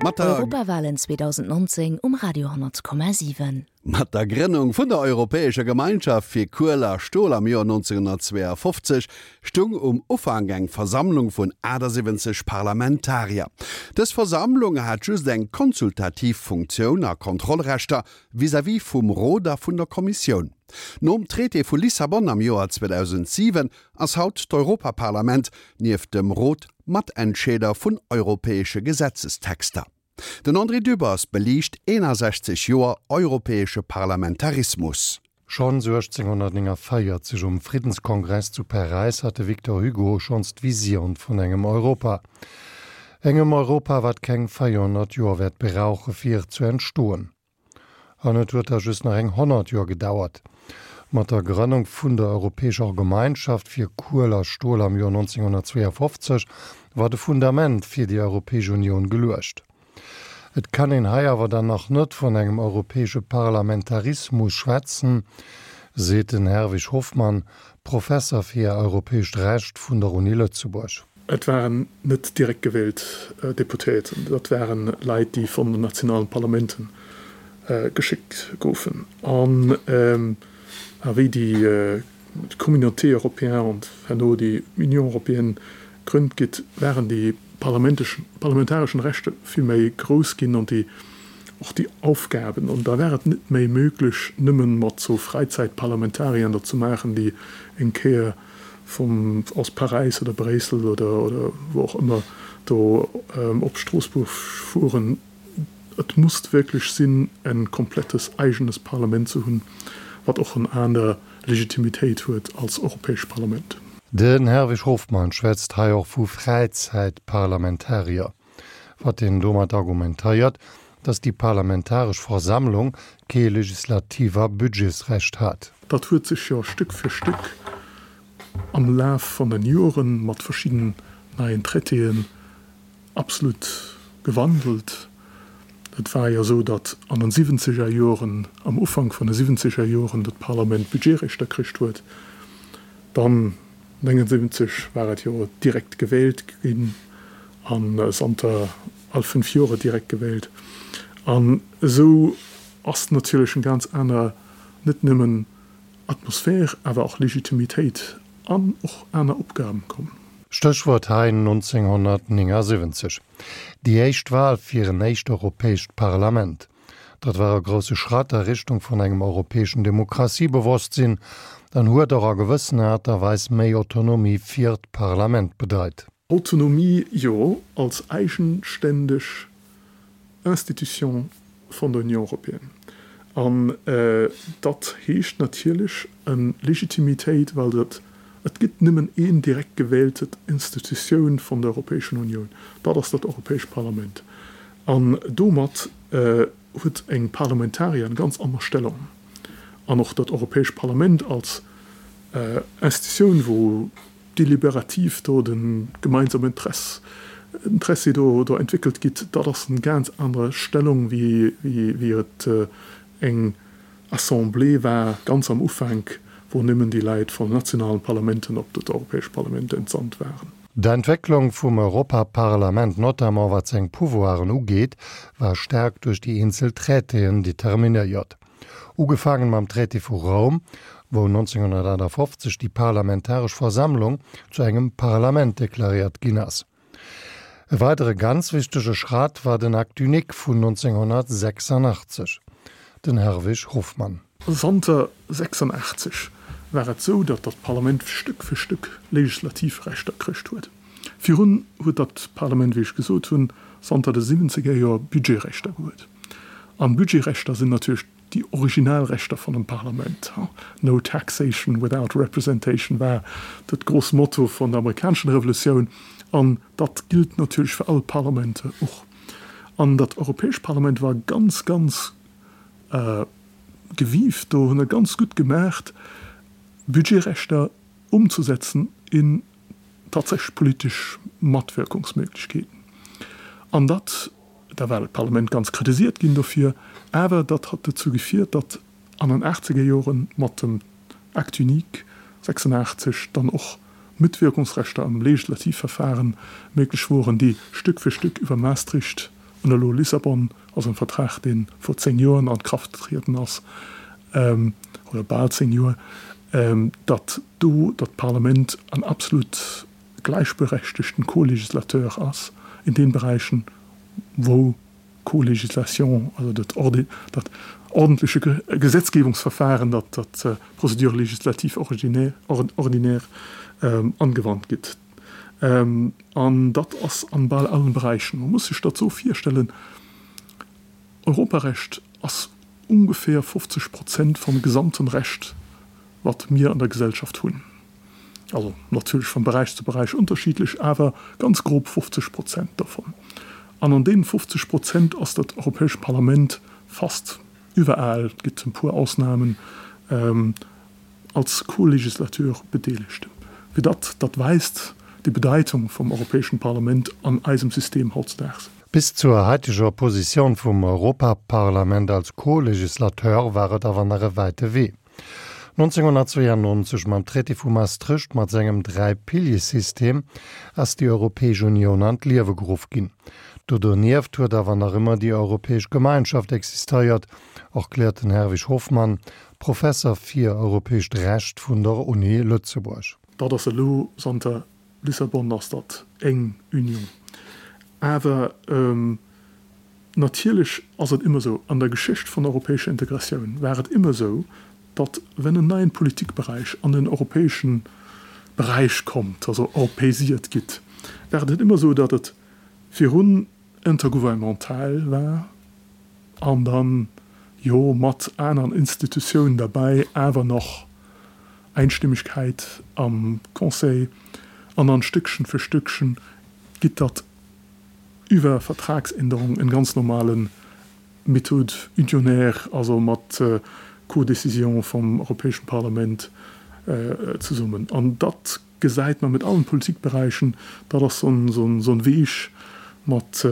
Mat der. Europawalen 2019 um Radio 10,7. Mat der Grënnung vun der Europäescher Gemeinschaft fir Kuel a Stol am Joer 1952 stung um Ufank eng Versammlung vun 78 Parlamentarier. Dës Versammlung hat just eng konsultativ Funktioun a Kontrollrechter vis-à-vis vum Rot a vun der Kommissioun. Nom Traité vu Lissabon am Joer 2007 ass haut d'Europaparlament nieft dem Rot Matentscheeder vun europäesche Gesetzestexter. Den André Dübbers beliicht 61 Joer europäesche Parlamentarismus. Schonns 1849 um Friddenskongress zu Paräis hat de Victor Hugo schonns d'Vision vun engem Europa. Engem Europa, wat keng 400 Joer wäert brauche fir zu entstoen. An et huet da just nach eng 100 Joer gedauert. Mat der Grënnung vun der Europäescher Gemeinschaft fir Kuel a Stol am Joer 1952 war de Fundament fir déi Europäesch Unioun geluecht. Et kann een hei awer dann nach net vun engem europäesche Parlamentarismus schwätzen, seet den Herwig Hofmann, Professer fir europäescht Recht vun der Uni Lëtzebuerg. Et waren net direkt gewielt Deputéierten, dat waren Leit, déi vun den nationalen Parlamenten geschéckt goufen. An wéi déi Communauté européenne an herno déi Union européenne grënnt gitt, waren déi parlamentareschen Rechte vill méi grouss ginn an déi och déi Aufgaben. An da war et net méi möglech, nëmmen mat sou Fräizäitparlamentariern dat ze maachen, déi eng Kéier vum aus Paräis oder Bréissel oder oder wou och ëmmer do op Stroossbuerg fueren. Et musst wierklech sinn en komplettes eigenes Parlament ze hunn, wat och en aner Legitimitéit huet als Europäescht Parlament. Den Herwig Hofmann schwätzt hei och vu Fräizäitparlamentarier. Wat en domat argumentéiert, datt déi parlamentaresch Versammlung kee legislativ a Budgetsrecht hat. Dat huet sech jo Stück fir Stück am Laf von den Joren mat verschidden neien Traitéen absolut gewandelt. Et war jo esou, datt an den siwwenzeger Joren, am Ufank vun de siwwenzeger Joren, dat Parlament Budgetrechter kricht huet. Dann 79 war et jo direkt gewählt ginn an zanter all 5 Jore direkt gewählt. An esou ass natierlech eng ganz aner, net nëmmen Atmosphär, awer och Legitimitéit an och aner Opgaben komm. Stéchwuert hei 1979, déi éischt Wahl fir en éischt europäescht Parlament. Dat war e grousse Schratt a Richtung vun engem europäeschen Demokratiebewosstsinn an huet och a gewëssener Aart a Weis méi Autonomie fir d'Parlament bedeit. Autonomie, jo, als eigenständeg Institution vun der Union européenne. An dat heescht natierlech eng Legitimitéit, well dat, et gëtt nëmmen een direkt gewählte Institutioun vun der Europäeschen Unioun, dat ass dat Europäescht Parlament. An domat huet eng Parlamentarier eng ganz aner Stellung. An och dat Europäescht Parlament als Institutioun, wou deliberativ do de gemeinsame Interesse, Interessi do do entwéckelt gitt, dat ass eng ganz aner Stellung, wéi wéi et eng Assemblée war ganz am Ufank, wou nëmmen déi Leit vun nationalen Parlamenten op dat Europäescht Parlament entsandt waren. D'Entwécklung vum Europaparlament, notamment wat seng Pouvoiren ugeet, war staark duerch déi eenzel Traitéen determinéiert. Ugefaangen mam Traité vu Roum, wou 1958 déi parlamentaresch Versammlung zu engem Parlament deklaréiert ginn ass. E weidere ganz wichtege Schratt war den Acte unique vun 1986. Den Herwig Hofmann. Zanter 86 war et sou, datt dat Parlament Stück fir Stück legislativ Rechter kricht huet. Virun huet dat Parlament, wéi ech gesot hunn, zanter de siwwenzeger Joer Budgetrechter gehuet. An Budgetrechter sinn natierlech déi original Rechter vun dem Parlament. No taxation without representation war dat gross Motto vun der amerikaneschen Revolutioun an dat gilt natierlech fir all Parlamente och. An dat Europäescht Parlament war ganz, ganz gewiift do, hunn et ganz gutt gemaacht, Budgetrechter umzusetzen in tatsächlech politesch Matwirkungsmöglichkeeten. An dat, da war d'Parlament ganz kritisiert ginn dofir, awer dat hat dozou gefiert, datt an den achtzeger Joren mat dem Acte unique 86 dann och Mitwirkungsrechter am Legislativverfahren méiglech woren, déi Stück fir Stück iwwer Maastricht. An elo Lissabon ass en Vertrag, dee vor 10 Joren an d'Krafft getrieden ass, oder bal 10 Joer, datt do datt d'Parlament en absolut gläichberechtegten Co-Législateur ass in den Beräichen, wou Co-Législation, also dat dat ordentleche Gesetzgebungsverfahren, dat dat Procédure législative ordinaire angewandt gitt. An dat ass an bal allen Beräichen. Man muss sech dat esou virstellen, Europarecht ass ungefähr 50 Prozent vum gesamten Recht, wat mir an der Gesellschaft hunn. Also natierlech vum Beräich zu Beräich unterschiedlech, awer ganz grob 50 Prozent dovun. An an deenen 50 Prozent ass dat Europäescht Parlament fast iwwerall, et gëtt e puer Ausnahmen, als Co-Législateur bedeelegt. Fir datt dat weist déi Bedeitung vum Europäeschen Parlament an eisem System hautzedaags. Bis zur haiteger Positioun vum Europaparlament als Co-Législateur war et awer nach e wäite Wee. 1992, mam Traité vu Maastricht mat sengem Dräi-Pilier-System, ass déi Europäesch Unioun an d'Liewe geruff ginn. Do donieft huet awer nach ëmmer déi Europäesch Gemeinschaft existeiert, erkläert den Herwig Hofmann, Professer fir europäescht Recht vun der Uni Lëtzebuerg. Dat ass elo zanter Lissabon ass dat eng Union. Awer natierlech ass et ëmmer esou, an der Geschicht vun der europäescher Integratioun war et ëmmer esou, datt wenn en neien Politikberäich an den europäesche Beräich kommt, also europäisiert gitt, war et ëmmer esou, datt et virun intergouvernemental war an dann, jo, mat aneren Institutiounen derbäi, awer nach Einstimmigkeit am Conseil an dann Stückchen für Stückchen gitt dat iwwer Vertragsänderung en ganz normale Méthode unionnaire, also mat Codécision vum Europäeschen Parlament zesummen. An dat gesäit mer mit allen Politikberäichen, dat ass so en Weg mat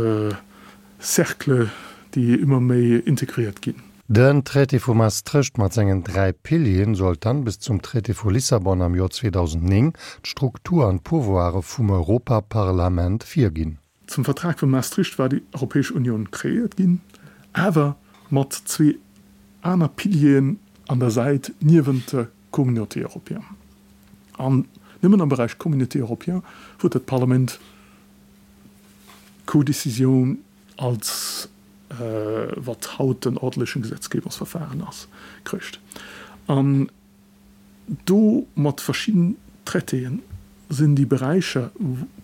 Cercle, déi ëmmer méi integriert ginn. Den Traité vu Maastricht mat sengen 3 Pilieren sollt dann bis zum Traité vu Lissabon am Joer 2009 d'Struktur an d'Pouvoire vum Europaparlament virginn. Zum Vertrag vu Maastricht war déi Europäesch Unioun kreéiert ginn, awer mat zwee aner Pilieren an der Säit niewent der Communauté européenne. An nëmmen am Beräich Communauté européenne huet dat Parlament d'Codécision als wat haut den ordentlechen Gesetzgebungsverfahren ass, kricht. An do mat verschidden Traitéen sinn déi Beräicher,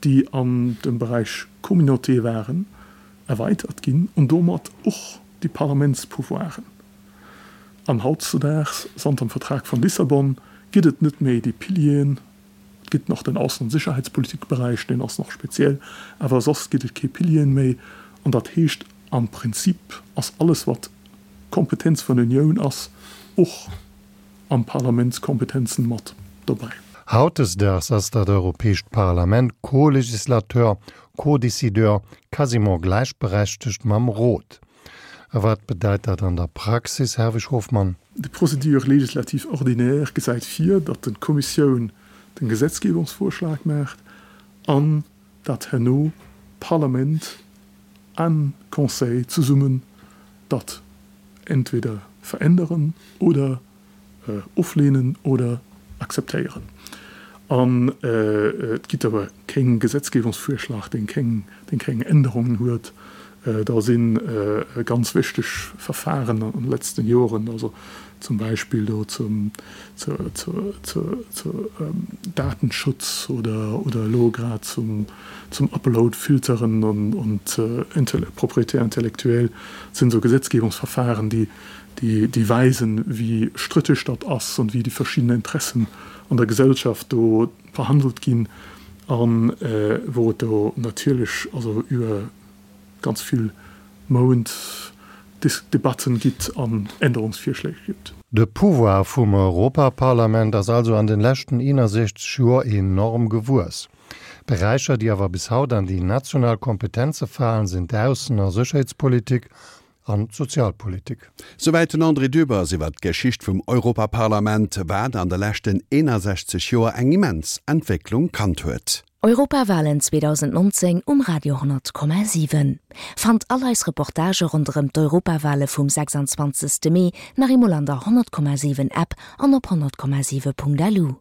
déi an dem Beräich Communauté waren, erweitert ginn an domat och déi Parlamentspouvoiren. An hautzedaags, zanter dem Vertrag von Lissabon, gëtt et net méi déi Pilieren. Et gëtt nach den Aussen an Sicherheitspolitikberäich, deen ass nach speziell, awer soss gëtt et kee Pilieren méi. An dat heescht, am Prinzip ass alles, wat Kompetenz vun der Unioun ass, och am Parlamentskompetenzen mat dobäi. Hautdesdaags ass dat Europäescht Parlament Co-Législateur, Co-Décideur, quasiment gläichberechtegt mam Rot. A wat bedeit dat an der Praxis, Herwig Hofmann? Déi Procédure législative ordinaire gesäit vir, datt d'Kommissioun den Gesetzgebungsvorschlag maacht an datt herno Parlament an Conseil zesummen dat entweder veränderen oder ofleenen oder akzeptéieren. An et gitt awer keng Gesetzgebungsvorschlag, deen keng, deen keng Änderungen huet. Da si ganz wichteg Verfahren an de letzten Joren, also zum Beispill do zum, zur, zur, zur, zur Datenschutz oder, oder elo grad zum, zum Upload-Filteren an, und Propriété intellectuelle, sinn esou Gesetzgebungsverfahren, déi, déi weisen, wéi strittig dat ass an wéi déi verschidden Interessen an der Gesellschaft do verhandelt ginn a wou et do natierlech also iwwer ganz vill Mount Debatten gitt an Änderungsvirschléi gibt. De Pouvoir vum Europaparlament ass also an den leschten 61 Joer enorm gewuess. Beräicher, déi awer bis haut an déi national Kompetenze falen, sinn d'Aussen a Sécherheetspolitik an d'Sozialpolitik. Souwäit den André Dübbers iwwer d'Geschicht vum Europaparlament, wat an de leschten 61 Joer eng immens Entwécklung kannt huet. Europawalen 2019 um Radio 10,7. Fannt all eis Reportagë ronderëm d'Europawale vum 26. Mee nach eemol an der 100,7 App an op 100,7.lu.